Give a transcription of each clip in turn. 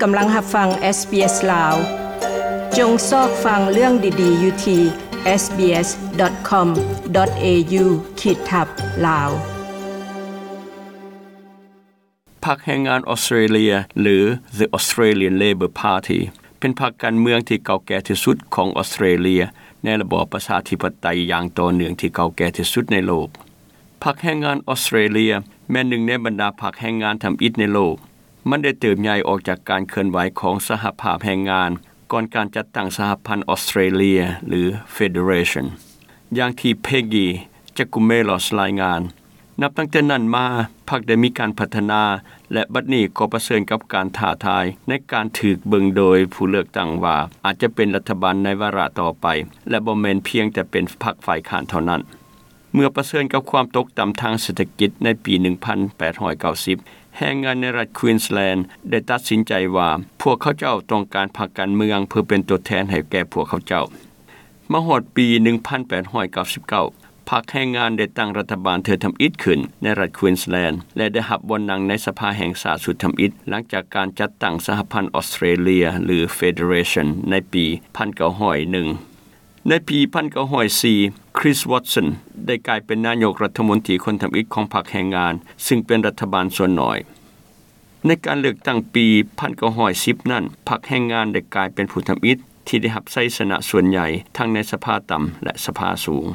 ກຳລັງຮັບຟັງ SBS ລາວ. ຈົ່ງຊອກຟັງເລື່ອງດີໆຢູ່ທີ່ SBS.com.au ຂີດທັບ ລາວ. ພັກແຮງງານອອສເຕຣເລັຍ ຫຼື The Australian Labor Party ເປັນພັກການເມືອງທີ່ເກົ່າແກ່ທີ່ສຸດຂອງອອສເຕຣເລັຍ ໃນລະບອບປະຊາທິປະໄຕຢ່າງຕໍ່ເນື່ອງທີ່ເກົ່າແກ່ທີ່ສຸດໃນໂລກ. ພັກແຮງງານອອສເຕຣເລັຍແມ່ນໜຶ່ງໃນບັນດາພັກແຮງງານທຳອິດໃນໂລກ. ມັນໄດ້ເຕີບໃຫຍ່ອອກຈາກການເຄື່ອນໄຫວຂອງສະຫະພາບແຮງງານ ກ່ອນການຈັດຕັ້ງສະຫະພັນອອສເຕຣເລັຍ ຫຼື Federation. ຢ່າງທີ່ Peggy Giakoumelos ລາຍງານ, ນັບຕັ້ງແຕ່ນັ້ນມາ, ພັກໄດ້ມີການພັດທະນາ ແລະ ບັດນີ້ກໍປະເຊີນກັບການທ້າທາຍໃນການຖືກເບິ່ງໂດຍຜູ້ເລືອກຕັ້ງວ່າອາດຈະເປັນລັດຖະບານໃນວາລະຕໍ່ໄປ ແລະ ບໍ່ແມ່ນພຽງແຕ່ເປັນພັກຝ່າຍຄ້ານເທົ່ານັ້ນ. ເມື່ອປະເຊີນກັບຄວາມຕົກຕ່ຳທາງເສດຖະກິດໃນປີໜຶ່ງພັນແປດຮ້ອຍເກົ້າສິບ, ແຮງງານໃນລັດ Queensland ໄດ້ຕັດສິນໃຈວ່າ ພວກເຂົາເຈົ້າຕ້ອງການພັກການເມືອງເພື່ອເປັນຕົວແທນໃຫ້ແກ່ພວກເຂົາເຈົ້າ. ມາຮອດປີໜຶ່ງພັນແປດຮ້ອຍເກົ້າສິບເກົ້າ, ພັກແຮງງານໄດ້ຕັ້ງລັດຖະບານເທື່ອທຳອິດຂຶ້ນໃນລັດ Queensland ແລະ ໄດ້ຮັບບ່ອນນັ່ງໃນສະພາແຫ່ງຊາດຊຸດທຳອິດ ຫຼັງຈາກການຈັດຕັ້ງສະຫະພັນອອສເຕຣເລັຍ ຫຼື Federation ໃນປີໜຶ່ງພັນເກົ້າຮ້ອຍໜຶ່ງ. ໃນປີໜຶ່ງພັນເກົ້າຮ້ອຍສີ່, Chris Watson ໄດ້ກາຍເປັນນາຍົກລັດຖະມົນຕີຄົນທຳອິດຂອງພັກແຮງງານ, ຊຶ່ງເປັນລັດຖະບານສ່ວນໜ້ອຍ. ໃນການເລືອກຕັ້ງປີໜຶ່ງພັນເກົ້າຮ້ອຍສິບນັ້ນ, ພັກແຮງງານໄດ້ກາຍເປັນຜູ້ທຳອິດທີ່ໄດ້ຮັບໄຊຊະນະສ່ວນໃຫຍ່ທັງໃນສະພາຕ່ຳ ແລະ ສະພາສູງ.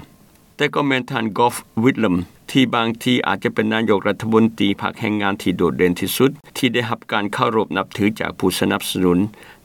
ແຕ່ກໍແມ່ນທ່ານ Gough Whitlam ທີ່ບາງທີອາດຈະເປັນນາຍົກລັດຖະມົນຕີພັກແຮງງານທີ່ໂດດເດັ່ນທີ່ສຸດ ທີ່ໄດ້ຮັບການເຄົາລົບນັບຖືຈາກຜູ້ສະໜັບສະໜູນ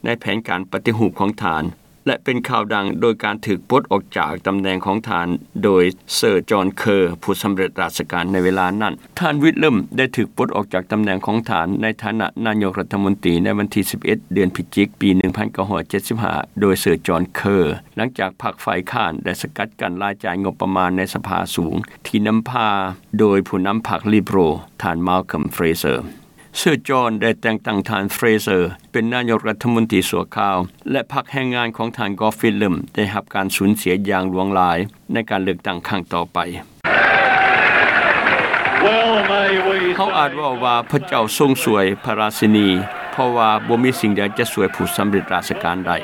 ໃນແຜນການປະຕິຮູບຂອງທ່ານ ແລະ ເປັນຂ່າວດັງໂດຍການຖືກປົດອອກຈາກຕຳແໜ່ງຂອງທ່ານໂດຍ Sir John Kerr ຜູ້ສຳເລັດລາຊະການໃນເວລານັ້ນ. ທ່ານ Whitlam ໄດ້ຖືກປົດອອກຈາກຕຳແໜ່ງຂອງທ່ານໃນຖານະນາຍົກລັດຖະມົນຕີໃນວັນທີສິບເອັດ ເດືອນພິຈິກ ປີໜຶ່ງພັນເກົ້າຮ້ອຍເຈັດສິບຫ້າ ໂດຍ Sir John Kerr ຫຼັງຈາກພັກຝ່າຍຄ້ານໄດ້ສະກັດກັ້ນລາຍຈ່າຍງົບປະມານໃນສະພາສູງ ທີ່ນຳພາໂດຍຜູ້ນຳພັກ Liberal ທ່ານ Malcolm Fraser. Sir John ໄດ້ແຕ່ງຕັ້ງທ່ານ Fraser ເປັນນາຍົກລັດຖະມົນຕີຊົ່ວຄາວ ແລະ ພັກແຮງງານຂອງທ່ານ Gough Whitlam ໄດ້ຮັບການສູນເສຍຢ່າງຫຼວງຫຼາຍໃນການເລືອກຕັ້ງຄັ້ງຕໍ່ໄປ. ເຮົາອາດເວົ້າວ່າພະເຈົ້າຊົງຊ່ວຍພະລາຊິນີ, ເພາະວ່າບໍ່ມີສິ່ງໃດຈະຊ່ວຍຜູ້ສຳເລັດລາຊະການໄດ້.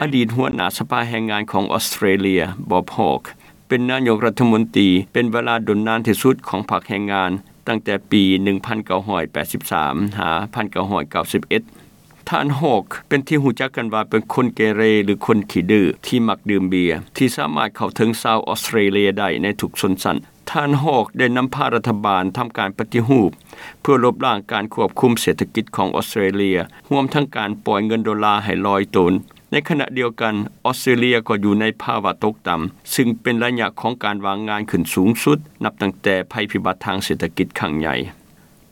ອະດີດຫົວໜ້າສະພາແຮງງານຂອງອອສເຕຣເລັຍ Bob Hawke ເປັນນາຍົກລັດຖະມົນຕີເປັນເວລາດົນນານທີ່ສຸດຂອງພັກແຮງງານ ຕັ້ງແຕ່ປີໜຶ່ງພັນເກົ້າຮ້ອຍແປດສິບສາມ ຫາ ໜຶ່ງພັນເກົ້າຮ້ອຍເກົ້າສິບເອັດ. ທ່ານ Hawke ເປັນທີ່ຮູ້ຈັກກັນວ່າເປັນຄົນເກເຣ ຫຼື ຄົນຂີ້ດື້ທີ່ມັກດື່ມເບຍ ທີ່ສາມາດເຂົ້າເຖິງຊາວອອສເຕຣເລັຍໄດ້ໃນທຸກຊົນຊັ້ນ. ທ່ານ Hawke ໄດ້ນຳພາລັດຖະບານທຳການປະຕິຮູບ ເພື່ອລົບລ້າງການຄວບຄຸມເສດຖະກິດຂອງອອສເຕຣເລັຍ, ຮວມທັງການປ່ອຍເງິນໂດລາໃຫ້ລອຍໂຕນ. ໃນຂະນະດຽວກັນ, ອອສເຕຣເລັຍກໍຢູ່ໃນພາວະຕົກຕ່ຳ, ຊຶ່ງເປັນໄລຍະຂອງການວ່າງງານຂຶ້ນສູງສຸດ ນັບຕັ້ງແຕ່ໄພພິບັດທາງເສດຖະກິດຄັ້ງໃຫຍ່.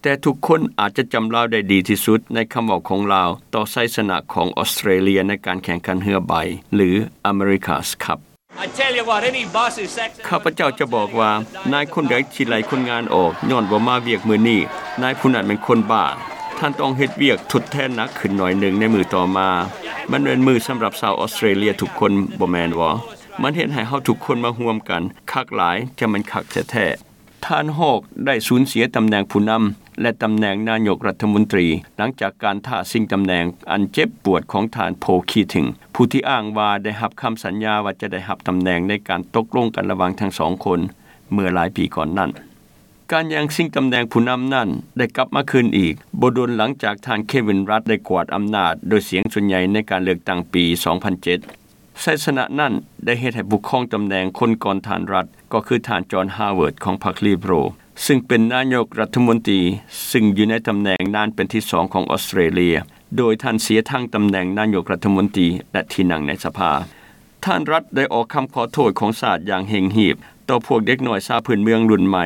ແຕ່ທຸກຄົນອາດຈະຈຳລາວໄດ້ດີທີ່ສຸດໃນຄຳເວົ້າຂອງລາວຕໍ່ໄຊຊະນະຂອງອອສເຕຣເລັຍໃນການແຂ່ງຂັນເຮືອໃບ ຫຼື America's Cup. I tell you what, any boss who sacks ຂ້າພະເຈົ້າຈະບອກວ່າ ນາຍຄົນໃດທີ່ໄລ່ຄົນງານອອກຍ້ອນບໍ່ມາວຽກມື້ນີ້, ນາຍຜູ້ນັ້ນແມ່ນຄົນບ້າ. ທ່ານຕ້ອງເຮັດວຽກທົດແທນໜັກຂຶ້ນໜ້ອຍໜຶ່ງໃນມື້ຕໍ່ມາ. ມັນແມ່ນມື້ສຳລັບຊາວອອສເຕຣເລັຍທຸກຄົນ, ບໍ່ແມ່ນບໍ່? ມັນເຮັດໃຫ້ເຮົາທຸກຄົນມາຮ່ວມກັນ. ຄັກຫຼາຍ, ຈະແມ່ນຄັກແທ້ໆ. ທ່ານ Hawke ໄດ້ສູນເສຍຕຳແໜ່ງຜູ້ນຳ ແລະ ຕຳແໜ່ງນາຍົກລັດຖະມົນຕີ ຫຼັງຈາກການທ້າຊິງຕຳແໜ່ງອັນເຈັບປວດຂອງທ່ານ Paul Keating ຜູ້ທີ່ອ້າງວ່າໄດ້ຮັບຄຳສັນຍາວ່າຈະໄດ້ຮັບຕຳແໜ່ງໃນການຕົກລົງກັນລະຫວ່າງທັງສອງຄົນເມື່ອຫຼາຍປີກ່ອນນັ້ນ. ການແຍ່ງຊິງຕຳແໜ່ງຜູ້ນຳນັ້ນໄດ້ກັບມາຄືນອີກ ບໍ່ດົນຫຼັງຈາກທ່ານ Kevin Rudd ໄດ້ກວາດອຳນາດໂດຍສຽງສ່ວນໃຫຍ່ໃນການເລືອກຕັ້ງປີສອງພັນເຈັດ. ໄຊຊະນະນັ້ນໄດ້ເຮັດໃຫ້ຜູ້ຄອງຕຳແໜ່ງຄົນກ່ອນທ່ານ Rudd ກໍຄືທ່ານ John Howard ຂອງພັກ Liberal ຊຶ່ງເປັນນາຍົກລັດຖະມົນຕີ ຊຶ່ງຢູ່ໃນຕຳແໜ່ງນານເປັນທີສອງຂອງອອສເຕຣເລັຍ, ໂດຍທ່ານເສຍທັງຕຳແໜ່ງນາຍົກລັດຖະມົນຕີ ແລະ ທີ່ນັ່ງໃນສະພາ. ທ່ານ Rudd ໄດ້ອອກຄຳຂໍໂທດຂອງຊາດຢ່າງເລັ່ງຮີບຕໍ່ພວກເດັກນ້ອຍຊາວພື້ນເມືອງລຸ້ນໃໝ່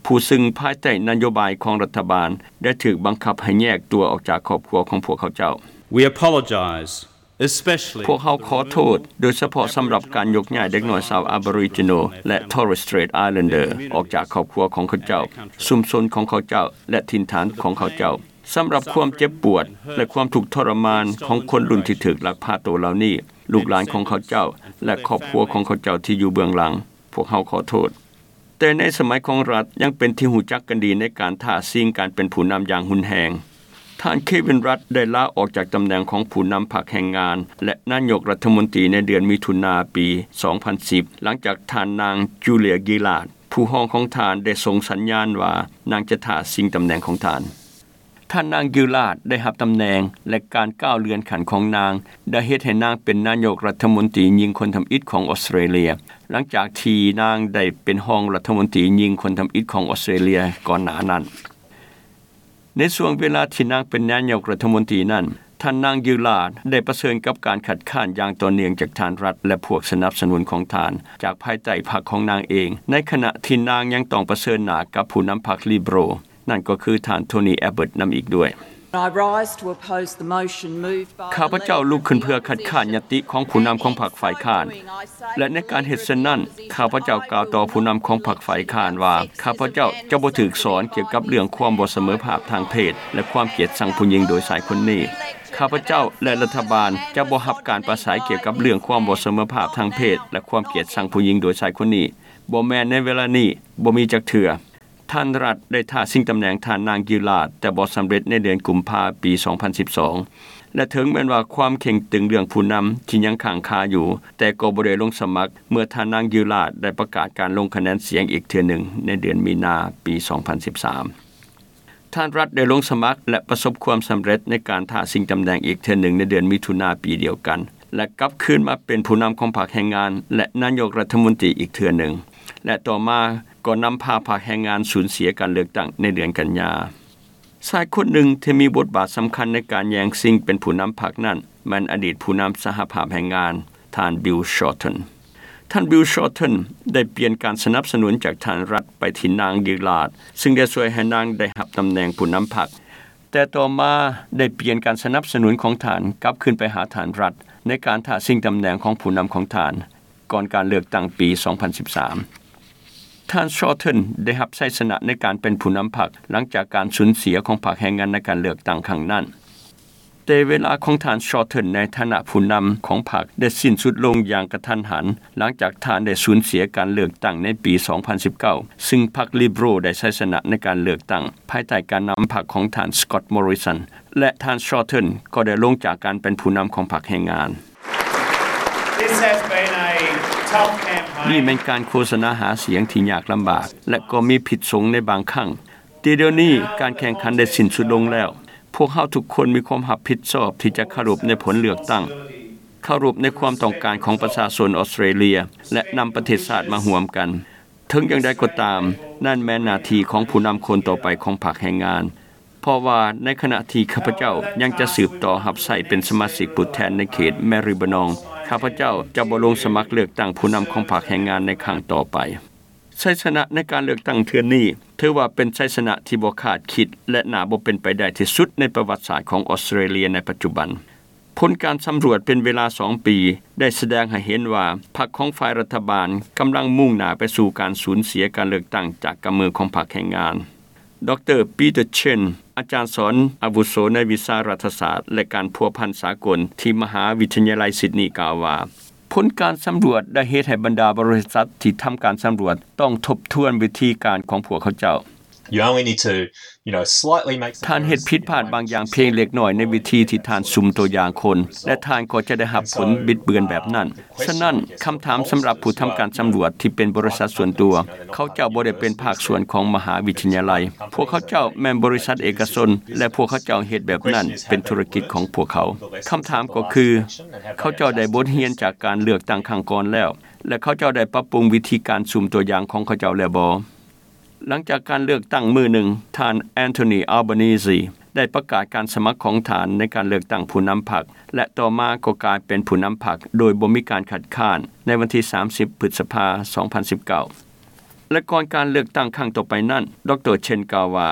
ຜູ້ຊຶ່ງພາຍໃຕ້ນະໂຍບາຍຂອງລັດຖະບານໄດ້ຖືກບັງຄັບໃຫ້ແຍກຕົວອອກຈາກຄອບຄົວຂອງພວກເຂົາເຈົ້າ. We apologize. ພວກເຮົາຂໍໂທດ, ໂດຍສະເພາະສຳລັບການຍົກຍ້າຍເດັກນ້ອຍຊາວ Aboriginal ແລະ Torres Strait Islander ອອກຈາກຄອບຄົວຂອງເຂົາເຈົ້າ, ຊຸມຊົນຂອງເຂົາເຈົ້າ ແລະ ຖິ່ນຖານຂອງເຂົາເຈົ້າ. ສຳລັບຄວາມເຈັບປວດ ແລະ ຄວາມທຸກທໍລະມານຂອງຄົນລຸ້ນທີ່ຖືກລັກພາໂຕເຫຼົ່ານີ້, ລູກຫຼານຂອງເຂົາເຈົ້າ ແລະ ຄອບຄົວຂອງເຂົາເຈົ້າທີ່ຢູ່ເບື້ອງຫຼັງ, ພວກເຮົາຂໍໂທດ. ແຕ່ໃນສະໄໝຂອງລັດຍັງເປັນທີ່ຮູ້ຈັກກັນດີໃນການທ້າຊິງການເປັນຜູ້ນຳຢ່າງຮຸນແຮງ. ທ່ານ Kevin Rudd ໄດ້ລາອອກຈາກຕຳແໜ່ງຂອງຜູ້ນຳພັກແຮງງານ ແລະ ນາຍົກລັດຖະມົນຕີໃນເດືອນມິຖຸນາປີສອງພັນສິບ ຫຼັງຈາກທ່ານນາງ Julia Gillard ຜູ້ຮອງຂອງທ່ານ ໄດ້ສົ່ງສັນຍານວ່ານາງຈະທ້າຊິງຕຳແໜ່ງຂອງທ່ານ. ທ່ານນາງ Gillard ໄດ້ຮັບຕຳແໜ່ງ ແລະ ການກ້າວເລື່ອນຂັ້ນຂອງນາງ ໄດ້ເຮັດໃຫ້ນາງເປັນນາຍົກລັດຖະມົນຕີຍິງຄົນທຳອິດຂອງອອສເຕຣເລຍ ຫຼັງຈາກທີ່ນາງໄດ້ເປັນຮອງລັດຖະມົນຕີຍິງຄົນທຳອິດຂອງອອສເຕຣເລຍກ່ອນໜ້ານັ້ນ. ໃນຊ່ວງເວລາທີ່ນາງເປັນນາຍົກລັດຖະມົນຕີນັ້ນ, ທ່ານນາງ Gillard ໄດ້ປະເຊີນກັບການຄັດຄ້ານຢ່າງຕໍ່ເນື່ອງຈາກທ່ານ Rudd ແລະ ພວກສະໜັບສະໜູນຂອງທ່ານ ຈາກພາຍໃຕ້ພັກຂອງນາງເອງ, ໃນຂະນະທີ່ນາງຍັງຕ້ອງປະເຊີນໜ້າກັບຜູ້ນຳພັກ Liberal ນັ້ນກໍຄືທ່ານ Tony Abbott ນຳອີກດ້ວຍ. I rise to oppose the motion moved by ຂ້າພະເຈົ້າລຸກຂຶ້ນເພື່ອຄັດຄ້ານຍະຕິຂອງຜູ້ນຳຂອງພັກຝ່າຍຄ້ານ ແລະ ໃນການເຮັດເຊັ່ນນັ້ນ, ຂ້າພະເຈົ້າກ່າວຕໍ່ຜູ້ນຳຂອງພັກຝ່າຍຄ້ານວ່າ ຂ້າພະເຈົ້າຈະບໍ່ຖືກສອນກ່ຽວກັບເລື່ອງຄວາມບໍ່ສະເໝີພາບທາງເພດ ແລະ ຄວາມກຽດຊັງຜູ້ຍິງໂດຍຊາຍຄົນນີ້. ຂ້າພະເຈົ້າ ແລະ ລັດຖະບານຈະບໍ່ຮັບການປາໄສກ່ຽວກັບເລື່ອງຄວາມບໍ່ສະເໝີພາບທາງເພດ ແລະ ຄວາມກຽດຊັງຜູ້ຍິງໂດຍຊາຍຄົນນີ້, ບໍ່ແມ່ນໃນເວລານີ້, ບໍ່ມີຈັກເທື່ອ. ທ່ານ Rudd ໄດ້ທ້າຊິງຕຳແໜ່ງທ່ານນາງ Gillard ແຕ່ບໍ່ສຳເລັດໃນເດືອນກຸມພາປີສອງພັນສິບສອງ ແລະ ເຖິງແມ່ນວ່າຄວາມເຄັ່ງຕຶງເລື່ອງຜູ້ນຳທີ່ຍັງຄ້າງຄາຢູ່, ແຕ່ກໍບໍ່ໄດ້ລົງສະໝັກເມື່ອທ່ານນາງ Gillard ໄດ້ປະກາດການລົງຄະແນນສຽງອີກເທື່ອໜຶ່ງໃນເດືອນມີນາປີສອງພັນສິບສາມ. ທ່ານ Rudd ໄດ້ລົງສະໝັກ ແລະ ປະສົບຄວາມສຳເລັດໃນການທ້າຊິງຕຳແໜ່ງອີກເທື່ອໜຶ່ງໃນເດືອນມິຖຸນາປີດຽວກັນ ແລະ ກັບຄືນມາເປັນຜູ້ນຳຂອງພັກແຮງງານ ແລະ ນາຍົກລັດຖະມົນຕີອີກເທື່ອໜຶ່ງ ແລະ ຕໍ່ມາກໍນຳພາພັກແຮງງານສູນເສຍການເລືອກຕັ້ງໃນເດືອນກັນຍາ. ຊາຍຄົນໜຶ່ງທີ່ມີບົດບາດສຳຄັນໃນການແຍ່ງຊິງເປັນຜູ້ນຳພັກນັ້ນ ແມ່ນອະດີດຜູ້ນຳສະຫະພາບແຮງງານ ທ່ານ Bill Shorten. ທ່ານ Bill Shorten ໄດ້ປ່ຽນການສະໜັບສະໜູນຈາກທ່ານ Rudd ໄປທີ່ນາງ Gillard ຊຶ່ງໄດ້ຊ່ວຍໃຫ້ນາງໄດ້ຮັບຕຳແໜ່ງຜູ້ນຳພັກ, ແຕ່ຕໍ່ມາໄດ້ປ່ຽນການສະໜັບສະໜູນຂອງທ່ານກັບຄືນໄປຫາທ່ານ Rudd ໃນການທ້າຊິງຕຳແໜ່ງຂອງຜູ້ນຳຂອງທ່ານ ກ່ອນການເລືອກຕັ້ງປີສອງພັນສິບສາມ. ທ່ານ Shorten ໄດ້ຮັບໄຊຊະນະໃນການເປັນຜູ້ນຳພັກ ຫຼັງຈາກການສູນເສຍຂອງພັກແຮງງານໃນການເລືອກຕັ້ງຄັ້ງນັ້ນ. ແຕ່ເວລາຂອງທ່ານ Shorten ໃນຖານະຜູ້ນຳຂອງພັກໄດ້ສິ້ນສຸດລົງຢ່າງກະທັນຫັນ ຫຼັງຈາກທ່ານໄດ້ສູນເສຍການເລືອກຕັ້ງໃນປີສອງພັນສິບເກົ້າ ຊຶ່ງພັກ Liberal ໄດ້ໄຊຊະນະໃນການເລືອກຕັ້ງ ພາຍໃຕ້ການນຳພັກຂອງທ່ານ Scott Morrison ແລະ ທ່ານ Shorten ກໍໄດ້ລົງຈາກການເປັນຜູ້ນຳຂອງພັກແຮງງານ. This has been a tough campaign. ນີ້ແມ່ນການໂຄສະນາຫາສຽງທີ່ຍາກລຳບາກ ແລະ ກໍມີພິດສົງໃນບາງຄັ້ງ. ແຕ່ດຽວນີ້ການແຂ່ງຂັນໄດ້ສິ້ນສຸດລົງແລ້ວ. ພວກເຮົາທຸກຄົນມີຄວາມຮັບຜິດຊອບທີ່ຈະເຄົາລົບໃນຜົນເລືອກຕັ້ງ, ເຄົາລົບໃນຄວາມຕ້ອງການຂອງປະຊາຊົນອອສເຕຣເລຍ ແລະ ນຳປະເທດຊາດມາຮ່ວມກັນ. ເຖິງຢ່າງໃດກໍຕາມ, ນັ້ນແມ່ນໜ້າທີ່ຂອງຜູ້ນຳຄົນຕໍ່ໄປຂອງພັກແຮງງານ. ເພາະວ່າໃນຂະນະທີ່ຂ້າພະເຈົ້າຍັງຈະສືບຕໍ່ຮັບໃຊ້ເປັນສະມາຊິກຜູ້ແທນໃນເຂດ Maribyrnong, ຂ້າພະເຈົ້າຈະບໍ່ລົງສະໝັກເລືອກຕັ້ງຜູ້ນຳຂອງພັກແຮງງານໃນຄັ້ງຕໍ່ໄປ. ໄຊຊະນະໃນການເລືອກຕັ້ງເທື່ອນີ້ ຖືວ່າເປັນໄຊຊະນະທີ່ບໍ່ຄາດຄິດ ແລະ ໜ້າບໍ່ເປັນໄປໄດ້ທີ່ສຸດໃນປະຫວັດສາດຂອງອອສເຕຣເລຍໃນປັດຈຸບັນ. ຜົນການສຳຫຼວດເປັນເວລາສອງປີ ໄດ້ສະແດງໃຫ້ເຫັນວ່າ ພັກຂອງຝ່າຍລັດຖະບານກຳລັງມຸ່ງໜ້າໄປສູ່ການສູນເສຍການເລືອກຕັ້ງຈາກກຳມືຂອງພັກແຮງງານ. ດຣ. Peter Chen, ອາຈານສອນອາວຸໂສໃນວິຊາລັດຖະສາດ ແລະ ການພົວພັນສາກົນທີ່ມະຫາວິທະຍາໄລຊິດນີ ກ່າວວ່າ, ຜົນການສຳຫຼວດໄດ້ເຮັດໃຫ້ບັນດາບໍລິສັດທີ່ທຳການສຳຫຼວດຕ້ອງທົບທວນວິທີການຂອງພວກເຂົາເຈົ້າ. You only need to, you know, slightly make some errors. ທ່ານເຮັດຜິດພາດບາງຢ່າງພຽງເລັກນ້ອຍໃນວິທີທີ່ທ່ານສຸ່ມຕົວຢ່າງຄົນ ແລະ ທ່ານກໍຈະໄດ້ຮັບຜົນບິດເບືອນແບບນັ້ນ. ສະນັ້ນ, ຄຳຖາມສຳລັບຜູ້ທຳການສຳຫຼວດທີ່ເປັນບໍລິສັດສ່ວນຕົວ, ເຂົາເຈົ້າບໍ່ໄດ້ເປັນພາກສ່ວນຂອງມະຫາວິທະຍາໄລ. ພວກເຂົາເຈົ້າແມ່ນບໍລິສັດເອກະຊົນ ແລະ ພວກເຂົາເຈົ້າເຮັດແບບນັ້ນເປັນທຸລະກິດຂອງພວກເຂົາ. ຄຳຖາມກໍຄື, ເຂົາເຈົ້າໄດ້ບົດຮຽນຈາກການເລືອກຕັ້ງຄັ້ງກ່ອນແລ້ວ ແລະ ເຂົາເຈົ້າໄດ້ປັບປຸງວິທີການສຸ່ມຕົວຢ່າງຂອງເຂົາເຈົ້າແລ້ວບໍ່? ຫຼັງຈາກການເລືອກຕັ້ງມື້ໜຶ່ງ, ທ່ານ Anthony Albanese ໄດ້ປະກາດການສະໝັກຂອງທ່ານໃນການເລືອກຕັ້ງຜູ້ນຳພັກ ແລະ ຕໍ່ມາກໍກາຍເປັນຜູ້ນຳພັກໂດຍບໍ່ມີການຄັດຄ້ານໃນວັນທີສາມສິບ ພຶດສະພາ ສອງພັນສິບເກົ້າ. ແລະ ກ່ອນການເລືອກຕັ້ງຄັ້ງຕໍ່ໄປນັ້ນ, ດຣ. Chen ກ່າວວ່າ,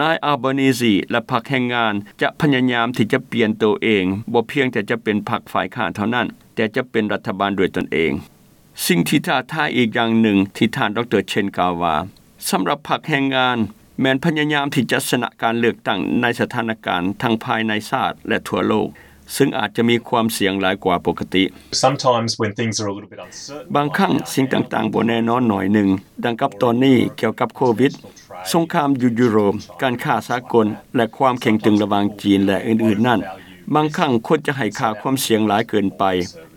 ນາຍ Albanese ແລະ ພັກແຮງງານຈະພະຍາຍາມທີ່ຈະປ່ຽນໂຕເອງ, ບໍ່ພຽງແຕ່ຈະເປັນພັກຝ່າຍຄ້ານເທົ່ານັ້ນ, ແຕ່ຈະເປັນລັດຖະບານດ້ວຍຕົນເອງ. ສິ່ງທີ່ທ້າທາຍອີກຢ່າງໜຶ່ງທີ່ທ່ານ ດຣ. Chen ກ່າວວ່າ, ສຳລັບພັກແຮງງານ ແມ່ນພະຍາຍາມທີ່ຈະຊະນະການເລືອກຕັ້ງໃນສະຖານະການທັງພາຍໃນຊາດ ແລະ ທົ່ວໂລກ. ຊຶ່ງອາດຈະມີຄວາມສ່ຽງຫຼາຍກວ່າປົກກະຕິ. Sometimes when things are a little bit uncertain, ບາງຄັ້ງສິ່ງຕ່າງໆບໍ່ແນ່ນອນໜ້ອຍໜຶ່ງ, ດັ່ງກັບຕອນນີ້ກ່ຽວກັບໂຄວິດ, ສົງຄາມຢູ່ຢູໂຣບ, ການຄ້າສາກົນ ແລະ ຄວາມເຄັ່ງຕຶງລະຫວ່າງຈີນ ແລະ ອື່ນໆນັ້ນ, ບາງຄັ້ງຄົນຈະໃຫ້ຄ່າຄວາມສ່ຽງຫຼາຍເກີນໄປ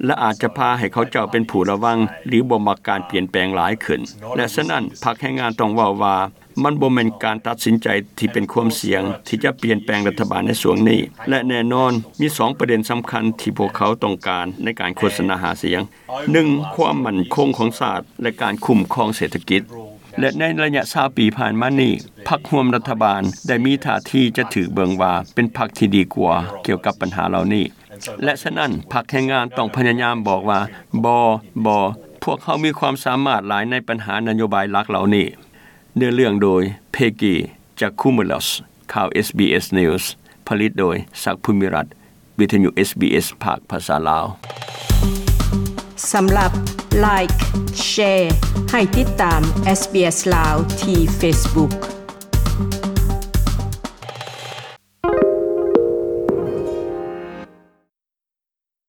ແລະ ອາດຈະພາໃຫ້ເຂົາເຈົ້າເປັນຜູ້ລະວັງ ຫຼື ບໍ່ມັກການປ່ຽນແປງຫຼາຍຂຶ້ນ. ແລະ ສະນັ້ນ ພັກແຮງງານຕ້ອງເວົ້າວ່າ ມັນບໍ່ແມ່ນການຕັດສິນໃຈທີ່ເປັນຄວາມສ່ຽງທີ່ຈະປ່ຽນແປງລັດຖະບານໃນຊ່ວງນີ້ ແລະ ແນ່ນອນມີສອງປະເດັນສຳຄັນທີ່ພວກເຂົາຕ້ອງການໃນການໂຄສະນາຫາສຽງ. ໜຶ່ງ ຄວາມໝັ້ນຄົງຂອງຊາດ ແລະ ການຄຸ້ມຄອງເສດຖະກິດ. ແລະ ໃນໄລຍະຊາວປີຜ່ານມານີ້, ພັກຮ່ວມລັດຖະບານໄດ້ມີທ່າທີຈະຖືກເບິ່ງວ່າເປັນພັກທີ່ດີກວ່າກ່ຽວກັບບັນຫາເຫຼົ່ານີ້. ແລະ ສະນັ້ນ ພັກແຮງງານຕ້ອງພະຍາຍາມບອກວ່າ ບໍ່, ບໍ່, ພວກເຮົາມີຄວາມສາມາດຫຼາຍໃນບັນຫານະໂຍບາຍຫຼັກເຫຼົ່ານີ້. ເນື້ອເລື່ອງໂດຍ ເພກີ ຈາຄູເມລັສ. ຂ່າວ ເອສບີເອສ News ຜະລິດໂດຍ ສັກ ພູມິລັດ, ວິທະຍຸ ເອສບີເອສ ພາກພາສາລາວ. ສຳລັບ Like, Share ໃຫ້ຕິດຕາມ ເອສບີເອສ ລາວ ທີ່ Facebook.